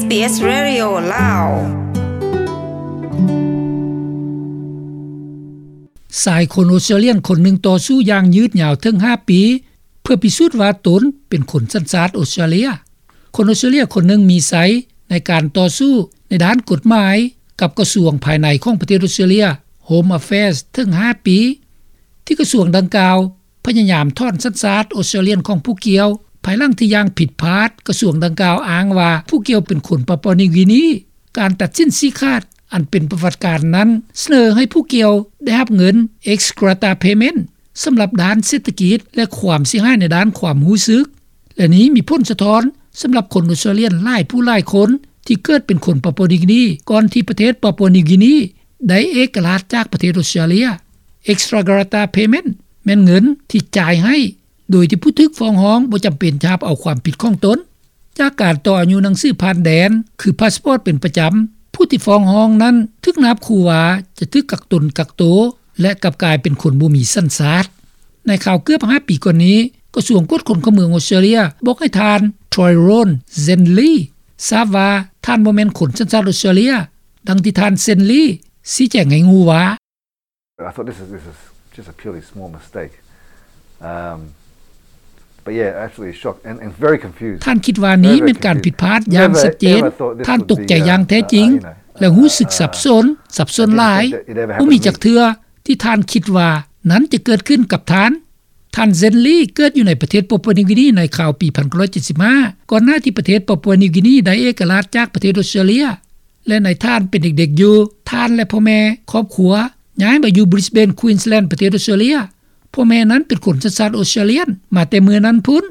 ເອສ Radio ລາວ. ຊາຍຄົນອົດສະຕຣາລຽນຄົນໜຶ່ງຕໍ່ສູ້ຢ່າງຍືດຍາວເຖິງຫ້າປີ ເພື່ອພິສູດວ່າຕົນເປັນຄົນສັນຊາດອົດສະຕຣາເລຍ. ຄົນອົດສະຕຣາເລຍຄົນໜຶ່ງມີໄຊໃນການຕໍ່ສູ້ໃນດ້ານກົດໝາຍກັບກະຊວງພາຍໃນຂອງປະເທດອົດສະຕຣາເລຍ Home Affairs ເຖິງຫ້າປີ ທີ່ກະຊວງດັ່ງກ່າວ ພະຍາຍາມຖອນສັນຊາດອົດສະຕຣາລຽນຂອງຜູ້ກ່ຽວ ພາຍຫຼັງທີ່ຢ່າງຜິດພາດ ກະຊວງດັ່ງກ່າວອ້າງວ່າຜູ້ກ່ຽວເປັນຄົນປາປົວນິວກີນີ. ການຕັດສິນຊີ້ຂາດອັນເປັນປະຫວັດການນັ້ນ ສະເໜີໃຫ້ຜູ້ກ່ຽວໄດ້ຮັບເງິນ ex gratia payment ສຳລັບດ້ານເສດຖະກິດ ແລະ ຄວາມເສຍຫາຍໃນດ້ານຄວາມຮູ້ສຶກ ແລະ ນີ້ມີຜົນສະທ້ອນສຳລັບຄົນອົດສະຕຣາລຽນຫຼາຍຜູ້ຫຼາຍຄົນ ທີ່ເກີດເປັນຄົນປາປົວນິວກີນີ ກ່ອນທີ່ປະເທດປາປົວນິວກີນີໄດ້ເອກະລາດຈາກປະເທດອົດສະຕຣາເລຍ. Ex gratia payment ແມ່ນເງິນທີ່ຈ່າຍໃຫ້ ໂດຍທີ່ຜູ້ຖືກຟ້ອງຮ້ອງບໍ່ຈຳເປັນຈະຮັບເອົາຄວາມຜິດຂອງຕົນ. ຈາກການຕໍ່ອາຍຸໜັງສືຜ່ານແດນ ຄືພາສປອດເປັນປະຈຳ, ຜູ້ທີ່ຟ້ອງຮ້ອງນັ້ນຖືກນາບຂູ່ວ່າຈະຖືກກັກຕົນກັກໂຕ ແລະ ກັບກາຍເປັນຄົນບໍ່ມີສັນຊາດ. ໃນຄາວເກືອບຫ້າປີກ່ອນນີ້ ກະຊວງກວດຄົນເຂົ້າເມືອງອົດສະຕຣາເລຍບອກໃຫ້ທ່ານ Tyrone Zenley ຊາບວ່າທ່ານບໍ່ແມ່ນຄົນສັນຊາດອົດສະຕຣາເລຍ, ດັ່ງທີ່ທ່ານ Zenley ຊີ້ແຈງໃຫ້ຮູ້ວ່າ I thought this is, this is just a purely small mistake. Um, but yeah, absolutely shocked and, and very confused. ທ່ານຄິດວ່ານີ້ແມ່ນການຜິດພາດຢ່າງຊັດເຈນ. ທ່ານຕົກໃຈຢ່າງແທ້ຈິງ ແລະ ຮູ້ສຶກສັບສົນ, ສັບສົນຫຼາຍ. ບໍ່ມີຈັກເທື່ອທີ່ທ່ານຄິດວ່ານັ້ນຈະເກີດຂຶ້ນກັບທ່ານ. ທ່ານ Zenley ເກີດຢູ່ໃນປະເທດປາປົວນິວກີນີໃນຄາວປີພັນເກົ້າຮ້ອຍເຈັດສິບຫ້າ ກ່ອນໜ້າທີ່ປະເທດປາປົວນິວກີນີໄດ້ເອກະລາດຈາກປະເທດອົດສະຕຣາເລຍ. ແລະ ໃນທ່ານເປັນເດັກໆຢູ່, ທ່ານ ແລະ ພໍ່ແມ່ຄອບຄົວຍ້າຍມາຢູ່ Brisbane Queensland ປະເທດອົດສະຕຣາເລຍ. ພໍ່ແມ່ນັ້ນເປັນຄົນສັນຊາດອົດສະຕຣາລຽນມາແຕ່ເມື່ອນັ້ນພຸ້ນ.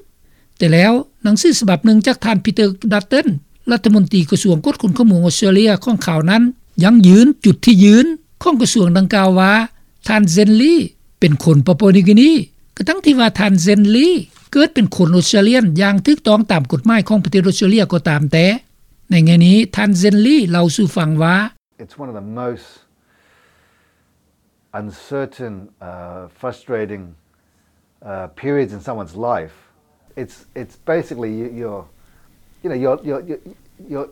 ແຕ່ແລ້ວໜັງສືສະບັບໜຶ່ງຈາກທ່ານ Peter Dutton ລັດຖະມົນຕີກະຊວງກວດຄົນເຂົ້າເມືອງອົດສະຕຣາເລຍຂອງຄາວນັ້ນ ຢັ້ງຢືນຈຸດທີ່ຢືນຂອງກະຊວງດັ່ງກ່າວວ່າ ທ່ານ Zenley ເປັນຄົນປາປົວນິວກີນີ, ກະທັ່ງທີ່ວ່າທ່ານ Zenley ເກີດເປັນຄົນອົດສະຕຣາລຽນຢ່າງຖືກຕ້ອງຕາມກົດໝາຍຂອງປະເທດອົດສະຕຣາເລຍກໍຕາມແຕ່. ໃນແງ່ນີ້ ທ່ານ Zenley ເລົ່າສູ່ຟັງວ່າ It's one of the most uncertain, uh, frustrating, uh, periods in someone's life. It's, it's basically you, you're, you know, you're, you're, you're, you're,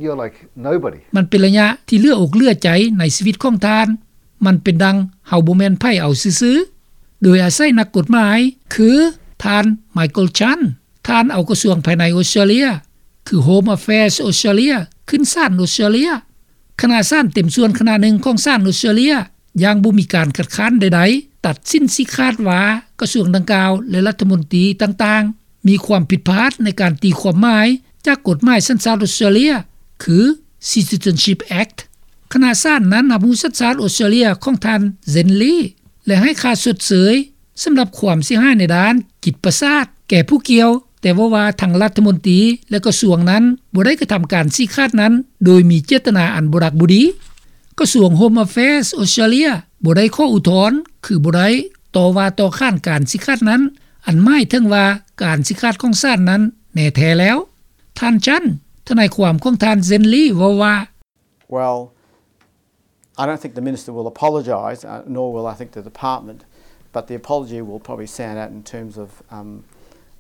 you're like nobody. ມັນເປັນໄລຍະທີ່ເຫຼືອອົກເຫຼືອໃຈໃນຊີວິດຂອງທ່ານ. ມັນເປັນດັ່ງເຮົາບໍ່ແມ່ນໃຜເອົາຊື່ໆ. ໂດຍອາໄສນັກກົດໝາຍ ຄື ທ່ານ Michael Chant ທ່ານເອົາກະຊວງພາຍໃນອົດສະຕຣາເລຍ ຄື Home Affairs Australia ຂຶ້ນສານອົດສະຕຣາເລຍ. ຄະນະສານເຕັມສ່ວນຄະນະໜຶ່ງຂອງສານອົດສະຕຣາເລຍ ຢ່າງບໍ່ມີການຄັດຄ້ານໃດໆ ຕັດສິນຊີ້ຂາດວ່າກະຊວງດັ່ງກ່າວ ແລະ ລັດຖະມົນຕີຕ່າງໆ ມີຄວາມຜິດພາດໃນການຕີຄວາມໝາຍຈາກກົດໝາຍສັນຊາດອົດສະຕຣາເລຍ ຄື Citizenship Act. ຄະນະສານນັ້ນຮັບຮູ້ສັນຊາດອົດສະຕຣາເລຍຂອງທ່ານ Zenley ແລະ ໃຫ້ຄ່າຊົດເຊີຍ ສຳລັບຄວາມເສຍຫາຍໃນດ້ານຈິດປະສາດແກ່ຜູ້ກ່ຽວ, ແຕ່ເວົ້າວ່າທັງລັດຖະມົນຕີ ແລະ ກະຊວງນັ້ນບໍ່ໄດ້ກະທຳການຊີ້ຂາດນັ້ນໂດຍມີເຈດຕະນາອັນບໍ່ດັກບໍ່ດີ. ກະຊວງ Home Affairs ອົດສະຕຣາເລຍບໍ່ໄດ້ຂໍອຸທອນ ຄືບໍ່ໄດ້ຕໍ່ວ່າຕໍ່ຂານການຊີ້ຂາດນັ້ນ, ອັນໝາຍເຖິງວ່າການຊີ້ຂາດຂອງສານນັ້ນແນ່ແທ້ແລ້ວ. ທ່ານ Chant ທະນາຍຄວາມຂອງທ່ານ Zenley ເວົ້າວ່າ Well, I don't think the minister will apologise, uh, nor will I think the department, but the apology will probably sound out in terms of, um,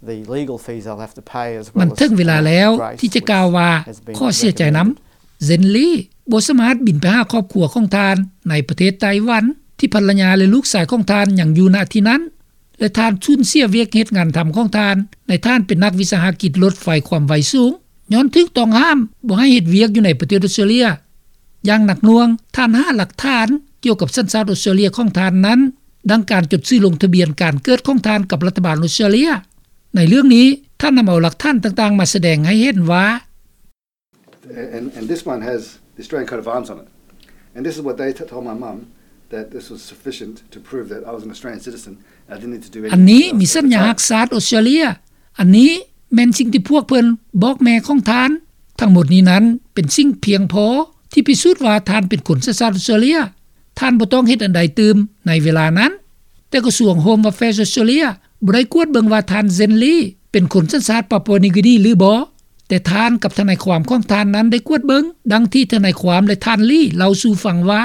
the legal fees they'll have to pay as well as, ມັນເຖິງເວລາແລ້ວທີ່ຈະກ່າວວ່າຂໍເສຍໃຈນຳ. Zenley ບໍ່ສາມາດບິນໄປຫາຄອບຄົວຂອງທ່ານໃນປະເທດໄຕ້ຫວັນ ທີ່ພັນລະຍາ ແລະ ລູກຊາຍຂອງທ່ານຍັງຢູ່ ນະ ທີ່ນັ້ນ. ແລະ ທ່ານສູນເສຍວຽກເຮັດງານທຳຂອງທ່ານ ໃນທ່ານເປັນນັກວິສາຫະກິດລົດໄຟຄວາມໄວສູງ ຍ້ອນຖືກຕ້ອງຫ້າມບໍ່ໃຫ້ເຮັດວຽກຢູ່ໃນປະເທດອົດສະຕຣາເລຍຢ່າງໜັກໜ່ວງ. ທ່ານຫາຫຼັກຖານກ່ຽວກັບສັນຊາດອົດສະຕຣາເລຍຂອງທ່ານນັ້ນ ດັ່ງການຈົດຊື່ລົງທະບຽນການເກີດຂອງທ່ານກັບລັດຖະບານອົດສະຕຣາເລຍ. ໃນເລື່ອງນີ້ ທ່ານນຳເອົາຫຼັກຖານຕ່າງໆມາສະແດງໃຫ້ເຫັນວ່າ And, and this one has the Australian coat of arms on it. And this is what they t-, told my mum, that this was sufficient to prove that I was an Australian citizen. I didn't need to do anything else. ອັນນີ້ມີສັນຍາລັກຊາດອົດສະຕຣາເລຍ. ອັນນີ້ແມ່ນສິ່ງທີ່ພວກເພິ່ນບອກແມ່ຂອງທ່ານ. ທັງໝົດນີ້ນັ້ນເປັນສິ່ງພຽງພໍທີ່ພິສູດວ່າທ່ານເປັນຄົນສັນຊາດອົດສະຕຣາເລຍ. ທ່ານບໍ່ຕ້ອງເຮັດອັນໃດຕື່ມໃນເວລານັ້ນ. ແຕ່ກະຊວງ Home Affairs Australia ບໍ່ໄດ້ກວດເບິ່ງວ່າທ່ານ Zenley ເປັນຄົນສັນຊາດປາປົວນິວກີນີຫຼືບໍ່, ແຕ່ທ່ານກັບທະນາຍຄວາມຂອງທ່ານນັ້ນໄດ້ກວດເບິ່ງ, ດັ່ງທີ່ທະນາຍຄວາມ ແລະ ທ່ານ Lee ເລົ່າສູ່ຟັງວ່າ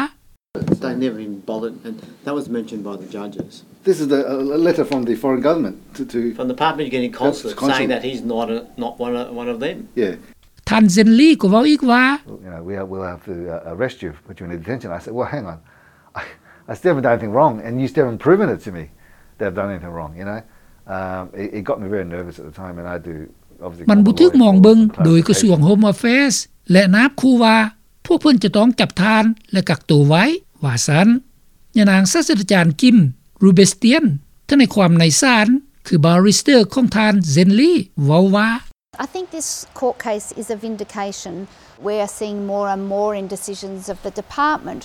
They never even bothered, and that was mentioned by the judges. This is the, a, a letter from the foreign government to, to From the Papua New Guinea consulate saying that he's not a, not one of, one of them. Yeah. ທ່ານ Zen Lee ກໍເວົ້າອີກວ່າ You know, we, we'll have to, uh, arrest you, put you in detention. I said, "Well, hang on. I, I still haven't done anything wrong, and you still haven't proven it to me that I've done anything wrong, you know?" Um, it, it got me very nervous at the time, and I do, obviously, ມັນບໍ່ຖືກມອງເບິ່ງໂດຍກະຊວງ Home Affairs ແລະນາບຂູ່ວ່າ ພວກເພິ່ນຈະຕ້ອງຈັບທ່ານ ແລະກັກໂຕໄວ້ ວ່າຊັ້ນ. ຍານາງສາດສະດາຈານ Kim Rubestian ທະນາຍຄວາມໃນສານ ຄື barrister ຂອງທ່ານ Zen Lee ເວົ້າວ່າ I think this court case is a vindication. We are seeing more and more in decisions of the department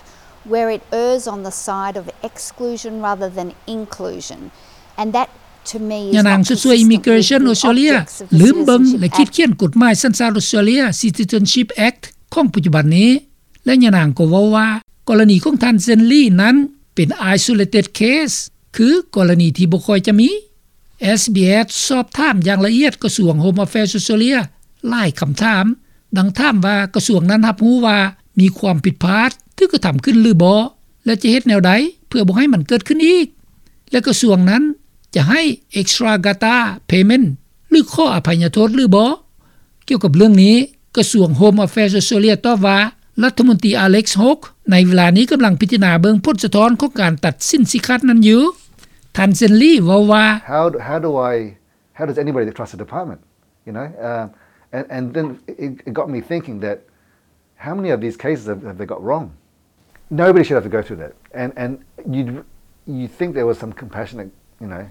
where it errs on the side of exclusion rather than inclusion. And that, to me, is ຍານາງ not ຊ່ວຍໆ consistent with Immigration the Australia objects of the ລືມເບິ່ງ Citizenship ແລະ Act. ຂີດຂຽນກົດໝາຍສັນຊາດ Australia Citizenship Act ຂອງປັດຈຸບັນນີ້ ແລະຍານາງກໍເວົ້າວ່າ ກໍລະນີຂອງທ່ານ Zen Lee ນັ້ນເປັນ isolated case ຄືກໍລະນີທີ່ບໍ່ຄ່ອຍຈະມີ. SBS ສອບຖາມຢ່າງລະອຽດກະຊວງ Home Affairs Australia ຫຼາຍຄຳຖາມ ດັ່ງຖາມວ່າກະຊວງນັ້ນຮັບຮູ້ວ່າມີຄວາມຜິດພາດຖືກກະທຳຂຶ້ນຫຼືບໍ່ ແລະຈະເຮັດແນວໃດເພື່ອບໍ່ໃຫ້ມັນເກີດຂຶ້ນອີກ ແລະກະຊວງນັ້ນຈະໃຫ້ extra gratia payment ຫຼືຂໍອະໄພຍະໂທດຫຼືບໍ່. ກ່ຽວກັບເລື່ອງນີ້ ກະຊວງ Home Affairs Australia ຕອບວ່າ ລັດຖະມົນຕີ Alex Hawke ໃນເວລານີ້ກຳລັງພິຈາລະນາເບິ່ງຜົນສະທ້ອນຂອງການຕັດສິນຊີ້ຂາດນັ້ນຢູ່. ທ່ານ Zen Lee ເວົ້າວ່າ How, how do I, how does anybody trust the department? You know, um, and, and then it, it got me thinking that how many of these cases have, have they got wrong? Nobody should have to go through that. And, and you'd, you'd think there was some compassionate, you know,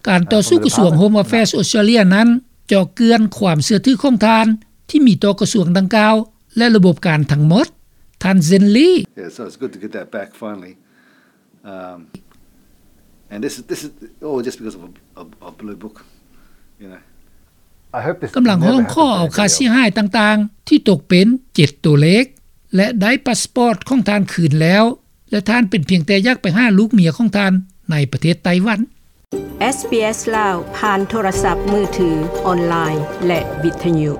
ການຕໍ່ສູ້ກະຊວງ Home Affairs Australia ນັ້ນເຈາະເຈື່ອນຄວາມເຊື່ອຖືຂອງທ່ານ ທີ່ມີຕໍ່ກະຊວງດັ່ງກ່າວ ແລະລະບົບການທັງໝົດ. ທ່ານ Zen Lee. Yeah, so it's good to get that back finally. Um, and this is, this is all just because of a, a, a blue book, you know. I hope this ກຳລັງຮ້ອງຂໍເອົາຄ່າເສຍຫາຍຕ່າງໆ ທີ່ຕົກເປັນເຈັດຕົວເລກ ແລະໄດ້ພາສປອດຂອງທ່ານຄືນແລ້ວ ແລະທ່ານເປັນພຽງແຕ່ຢາກໄປຫາລູກເມຍຂອງທ່ານໃນປະເທດໄຕ້ຫວັນ. SBS ລາວ ຜ່ານໂທລະສັບມືຖື, ອອນລາຍ ແລະ ວິທະຍຸ.